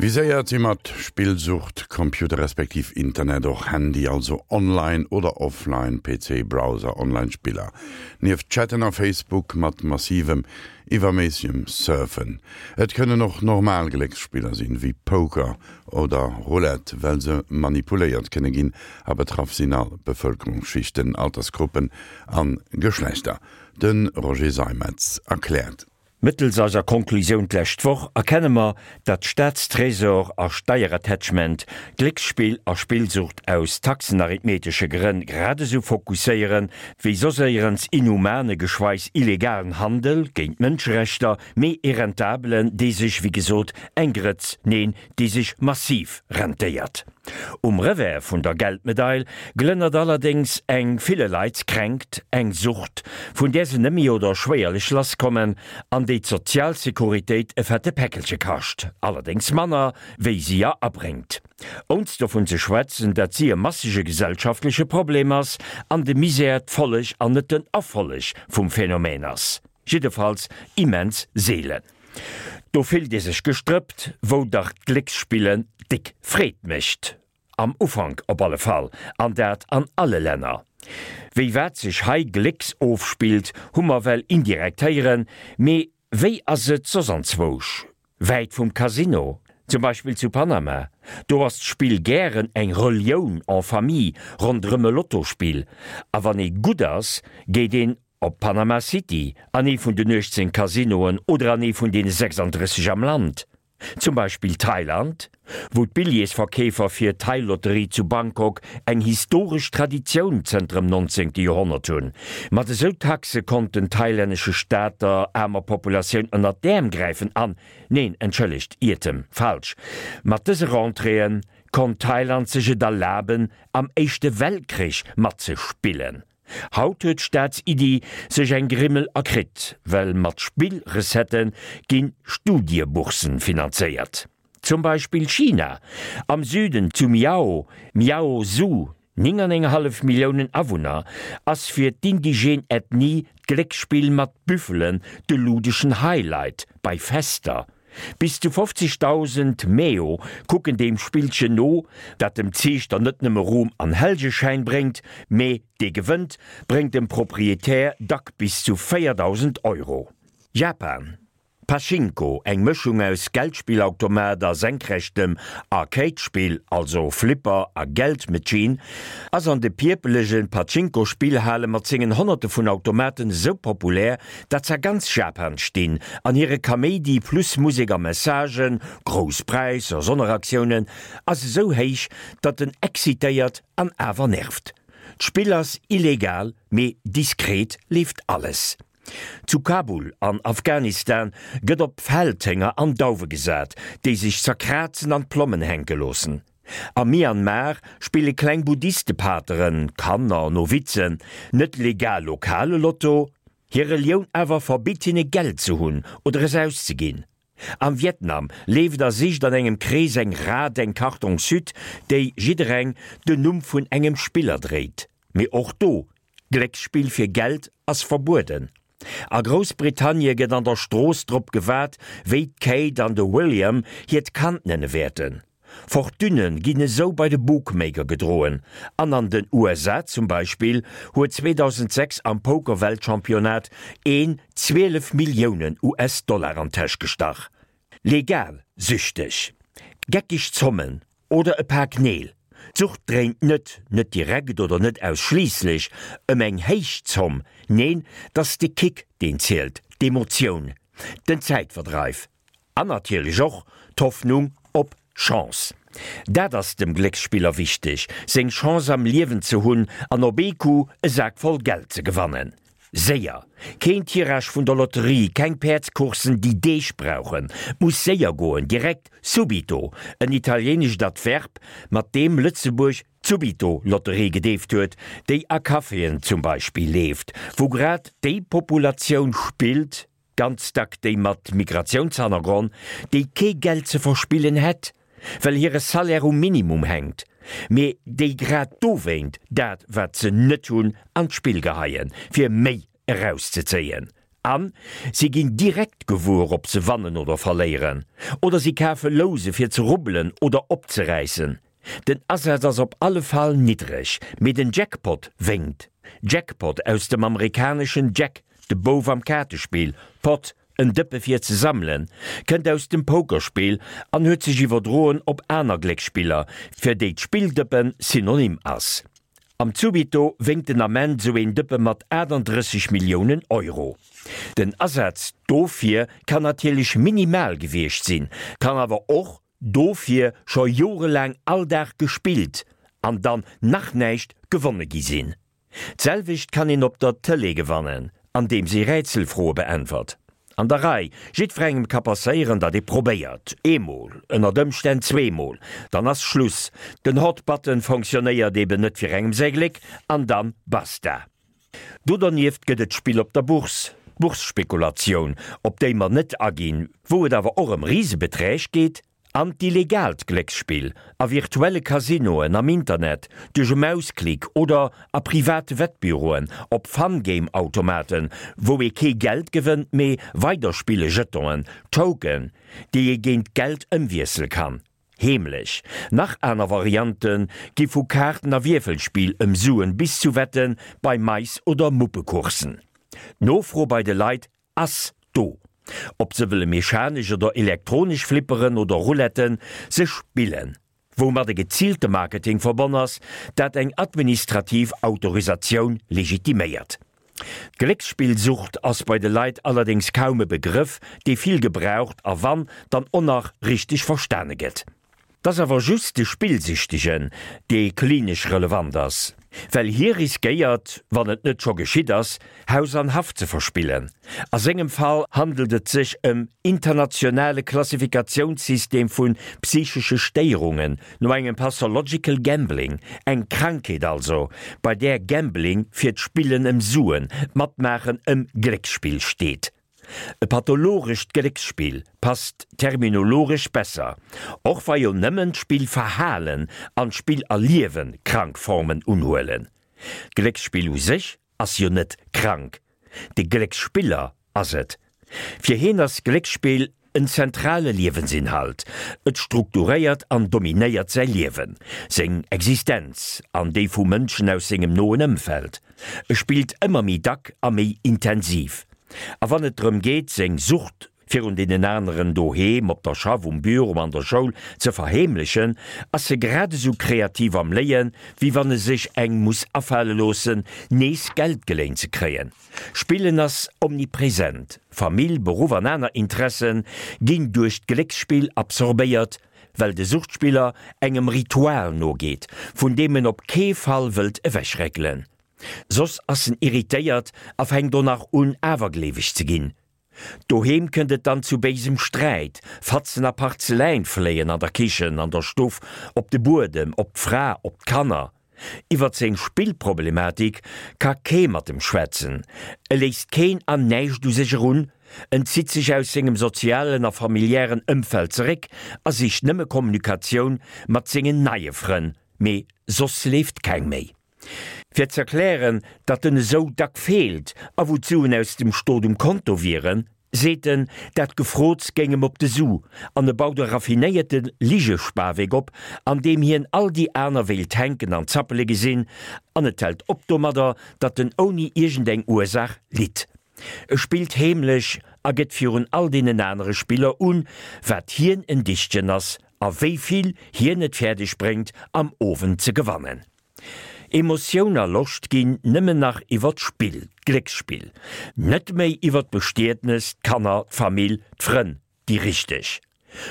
Viséiert si mat Spillsucht Computer respektiv Internet, och Handy, also online oder offline, PC, Browser, online Spiller. Nieft Chatten a Facebook mat massivem, iwwerméissegem Surfen. Et kënnen och normal Glécksspiller sinn, wéi Poker oder Roulette, well se manipuléiert kënne ginn a betraff sinn all Bevëlkerungsschichten, Altersgruppen a Geschlechter. De Roger Seimetz erkläert. Mëttels eiser Konklusioun d'lescht Woch erkenne mer, datt Staatstresor a Steierattachment Glécksspill a Spillsucht aus taxenarithmetesche Grënn grad esou fokusséieren, wéi soss éierens inhumane, geschweiss illegalen Handel, géint d'Mënscherechter, mee ee rentabelen, dee sech, wéi gesot, eng Grëtz, neen, déi sech massiv rentéiert. Um Revers vun der Geldmedail glënnert allerdéngs eng ville Leit Kränkt, eng Sucht, vun där se nëmme oder schwéierlech lasskommen an déi d'Sozialsecuritéit e fette Päckelche kascht, allerdéngs manner, wéi si er abréngt. Ounst dovun ze schwätzen, dat si e massege gesellschaftleche Problem ass an de Misär d'Folleg an net den Erfolleg vum Phänomen ass. Jiddefalls immens seelen. Do fillt ee sech gestrëppt, wou dach d'Glécksspillen déck Freed mécht. Am Ufank op alle Fall, an dat an alle Länner. Wéi wat sech hei glécks ofspillt, hu mer well indirekt héieren, mee wéi ass et soss anzwousch? Wäit vum Casino, zum Beispill zu Panama, do ass d'Spill gären eng Relioun en famille ronderëm e Lottospill, a wann ee gutt ass, geet een Op Panama City, an ee vun den 18 Casinoen oder an ee vun deene 36 am Land, zum Beispill Thailand, wou d'Billjeesverkeefer fir d'Thai-Lotterie zu Bangkok eng historesch Traditioun zënter dem 19. Joerhonnert hunn. Mat esou Taxe konnt den thailännesche Staat der aarmer Populatioun ënnert d'Äerm gräifen an, neen, entschëllegt, Iertem, falsch, mat dëse Rentréeë konnt Thailand sech et erlaben, am Éischte Weltkrich matzespillen. Haut huet d'Staatsiddi sech eng Grimmel erkritt, well mat Spillrecettë gi Studieboursen finanzéiert. Zum Beispill China, am Süden zu Miao, Miao Zhu, 9 an eng hallef Milliounen Awunner, ass fir d'indigène Ethnie d'Glécksspill mat Büffelen de ludeschen Highlight bei Fester. Bis zu 50.000 Meo kucken deem Spillchen no, dat dem Ziichter net nëmme Ruhm an Hellgeschäin bréngt, mee dee gewënnt, bréngt dem Proprietär dack bis zu 4.000 Euro. Japan, Pachinko, eng Mëschung aus Geldspillautomat a senkrechtem Arcade-Spill, also Flipper a Geldmachine, ass an de pierpelege Pachinko-Spillhale mat sengen Honnerte vun Automaten esou populär, dat s'a ganz Japan stinn an hire Kaméidi plus Musek a Messagen, grouss Präisser, Sonneraktiounen, ass esou héich, datt en excitéiert an awer nervt. D'Spill ass illegal, mee diskret leeft alles. Zu Kabul an Afghanistan gëtt op Feldhénger an Dauwe gesat, déi sech zerkrazen an d'Plommen hänke loossen. Am Myanmar spille kleng Buddhistepateren, Kanner, Novizen, net legal lokale Lotto, Hir Relioun awer verbitt hinne Geld ze hunn oder es auszeginn. Am Vietnam leeft a sicht an engem Krees eng Rat, eng Kartongshütt, déi jiddereng den Numm vun engem Spiller dréit. Mee och do, Glécksspill fir Geld ass verbueden. A Groussbritannie gëtt an der Strooss drop gewaart, wéi d'Kate an de William hiert Kand nenne wäerten. Fortunne ginn esou bei de Bookmaker gedroen an an den USA zum Beispill huet 2006 am Poker-Weltchampionnat een 12 Milliounen US-Dollar an d'Täsch gestach. Legal süchteg, geckeg Zommen oder e Pak Neel, d'Sucht dréint net, net direkt oder net ausschliisslech, ëm eng héich Zomm, neen, 't ass de Kick deen zielt, d'Emotioun, den Zäitverdreif. An natierlech och d'Hoffnung op Chance. Dat ass dem Glécksspiller wichteg, seng Chance am Liewen ze hunn an op ee Coup e Sak voll Geld ze gewannen. Séier! Keen Tirage vun der Lotterie, keng Päerdscoursen déi Deeg brauchen. 't muss séier goen, direkt, subito, en italienescht Adverb, mat deem Lëtzebuerg d'Subito-Lotterie gedeeft huet, déi a Caféen zum Beispill leeft, wou grad déi Populatioun spillt, Ganz dack déi mat Migratiounshannergronn, déi kee Geld ze verspillen hätt, well hire Salaire um Minimum hänkt, mee déi grad dowéint dat wat se net hunn an d'Spill geheien, fir méi erauszezéien. An si ginn direkt gewuer ob se wannen oder verléieren. Oder si kafe Louse fir ze rubbelen oder opzeräissen. Den Asaz ass op alle Fall niddreg, mee den Jackpot wénkt. Jackpot aus dem amerikaneschen Jack, de Bouf am Kaartespill, Pot, en Dëppe fir ze sammelen, kënnt aus dem Pokerspill an huet sech iwwerdroen op aner Glécksspiller, fir déi d'Spilldëppen Synonym ass. Am Zubito wénkt den Ament sou een Dëppe mat 38 Milliounen Euro. Den Asaz dofir kann natierlech minimal gewiescht sinn, kann awer och dofir scho jorelaang all Dag gespillt an dann nach näischt gewonne gi sinn. D'selwecht kann een op der Tëlee gewannen, andeems ee Rätselfroe beäntwert. An der Rei, jiddwerengem ka passéieren, datt ee probéiert, eemol, ënnert Ëmstänn zweemol, dann ass Schluss, den Hot Button fonctionnéiert eben net fir engem säi Gléck, an dann basta. Do dernieft gëtt et d'Spill op der Bourse, d'Bourse-Spekulatioun, op déi mer net aginn, wou et awer och ëm Risebeträg geet, An d'illegaalt Glécksspill a virtuelle Casinoen am Internet, duerch e Mausklick oder a private Wettbüroen, op Fun-Game-Automaten, wou ee kee Geld gewënnt, mee Weiderspille-Jetonen, Token, déi ee géint Geld ëmwiessele kann. Heemlech. Nach aner Variante gi vu Kaarten a Wierfelspill ëm Suen bis zu Wette bei Mais oder Muppecoursen. D'Nofro bei de Leit Ass do. Ob se wëlle mechanesch oder elektronesch Flipperen oder Rouletten, se spillen. Woumat e geziilte Marketing verbonn ass, dat eng administrativ Autorisatioun legitiméiert. D'Glécksspillsucht ass bei de Leit allerdéngs kaum e Begrëff, dee vill gebraucht a wann, dann och nach richteg verstane gëtt. 't ass awer just de Spillsüchtegen, dee klinesch relevant ass, well hie riskéiert, wann et net scho geschitt ass, Haus an Haff ze verspillen. A sengem Fall handelt et sech ëm internationale Klassifikatiounssystem vu psychesche Stéierungen no engem Pathological Gambling, eng Krankheet also, bei där Gambling fir d'Spillen ëm Suen, d'Matmaachen ëm Glécksspill steet. E pathologescht Glécksspill passt terminologesch besser, och wa jo nëmmen d'Spillverhalen an d'Spillerliewe krank Formen unhuelen. D'Glécksspill u sech ass jo net krank, de Glécksspiller ass et. Fir hien ass Glécksspill en zentrale Liewensinhalt, et strukturéiert an dominéiert säi Liewen, seng Existenz an déi vu Mënschen aus sengem noen Ëmfeld. E spillt ëmmer méi dack a méi intensiv. A wann et drëm geet, seng Sucht virun deenen aneren doheem, op der Schaff, um Büro, an der Schoul ze verheemlechen, ass e grad esou kreativ am Léien, wéi wann e sech eng muss afale loossen, nees Geld geléint ze kréien. Spillen ass omnipresent, Famill, Beruff an aner Interesse ginn duerch d'Glécksspill absorbéiert, well de Suchtspiller engem Ritual nogeet, vun deem en op kee Fall wëllt ewechréckelen. Soss ass en irritéiert a fänkt och nach un awergleeweg ze ginn. Doheem kënnt et dann zu béisem Sträit, Fatzen a Parzeläin fléien an der Kichen, an der Stuff, op de Buedem, op d'Fra, op d'Kanner. Iwwert seng Spillproblematik ka kee mat em schwätzen, e léisst keen an näischt u sech erun, en zitt sech aus sengem sozialen a familiären Ëmfeld zeréck a sicht nëmme Kommunikatioun mat sengen neie Frënn, mee soss leeft keng méi. Fir z'erklären, datt en esou dack feelt a wou d'Suen aus dem Stot um Konto wieren, seet en, dat Gefrots géing em op de Su an e baut e raffinéierte Ligespawek op, an deem hien all déi aner wéilt hänken an zappele gesinn, an et hält op domadder, datt en ouni iergendeng Ursaach litt. E spillt heemlech a gëtt virun all deenen anere Spiller un, wat hien en Dichtchen ass a wéi vill hien et fäerdeg bréngt, am Owend ze gewannen. Emotioun a Loscht ginn nëmmen nach iwwer d'Spill, d'Glécksspill, net méi iwwer d'Bestietnes, d'Kanner, d'Famill, d'Frënn, déi richteg.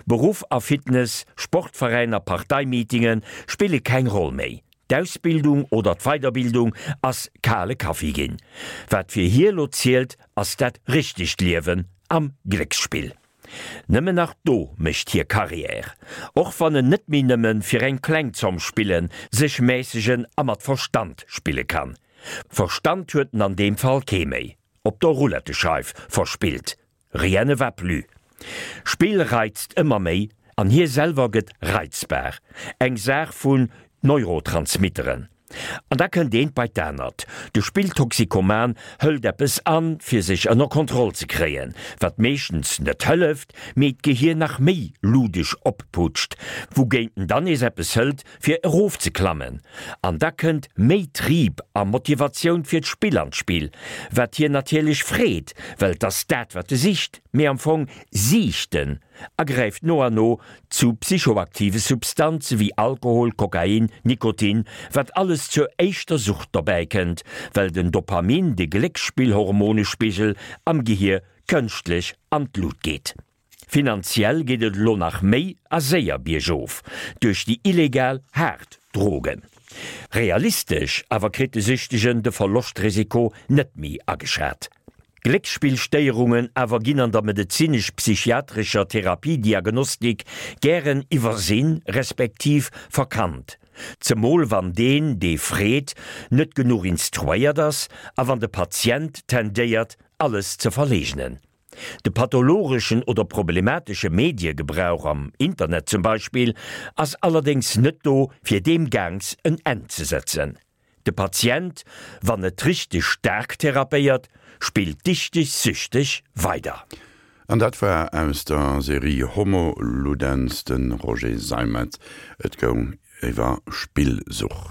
Beruff a Fitness, Sportveräin a Parteimeetinge spille keng Roll méi. D'Ausbildung oder d'Weiderbildung ass kale Kaffi ginn. Wat fir hie lo zielt, ass dat richtegt Liewen am Glécksspill. Nëmmen nach do mécht hie Carrière, och wann en net méi nëmme fir eng kleng Zomm spillen, sech mässegen a mat Verstand spille kann. Verstand huet en an deem Fall kee méi, op der Roulettescheif verspillt, rien ne va plus. Spill reizt ëmmer méi an hie selwer gëtt reizbar, eng Saach vun Neurotransmitteren. An da kënnt eent bei d'anert, De Spilltoxikoman hëlt eppes an, fir sech ënner Kontroll ze kréien, wat meeschtens net hëlleft, mee d'Gehier nach méi ludesch opputscht, wougéint en dann nees eppes hëlt, fir erofzeklammen. An da kënnt méi Trieb a Motivatioun fir d'Spill an d'Spill, wat hien natierlech freet, well 't ass dat, wat e sicht, mee am Fong siicht en a gräift no an no zu psychoaktive Substanze wéi Alkohol, Kokain, Nikotin, wat alles zur éischter Sucht dobäi kënnt, well den Dopamin, de Glécksspillhormonespigel am Gehier, kënschtlech an d'Lut geet. Finanziell geet et elo nach méi a séier biergof, duerch déi illegal haart Drogen. Realistesch awer kritt de Süchtegen de Verloschtrisiko net méi ageschat. Glécksspillstéierungen awer ginn an der medezinesch-psychiatrescher Therapiediagnostik gären iwwersinn, respektiv verkannt, zemol wann deen, dee freet, net genuch instruéiert ass a wann de Patient tendéiert, alles ze verleegnen. De pathologeschen oder problematesche Mediegebrauch, am Internet zum Beispill, ass allerdéngs net do, fir deem Gaangs en Enn ze setzen. De Patient, wann net richteg staark therapéiert, spillt dichteg süchteg weider. An dat war aus der Serie Homo Ludens de Roger Seimetz. Et goung iwwer Spillsucht.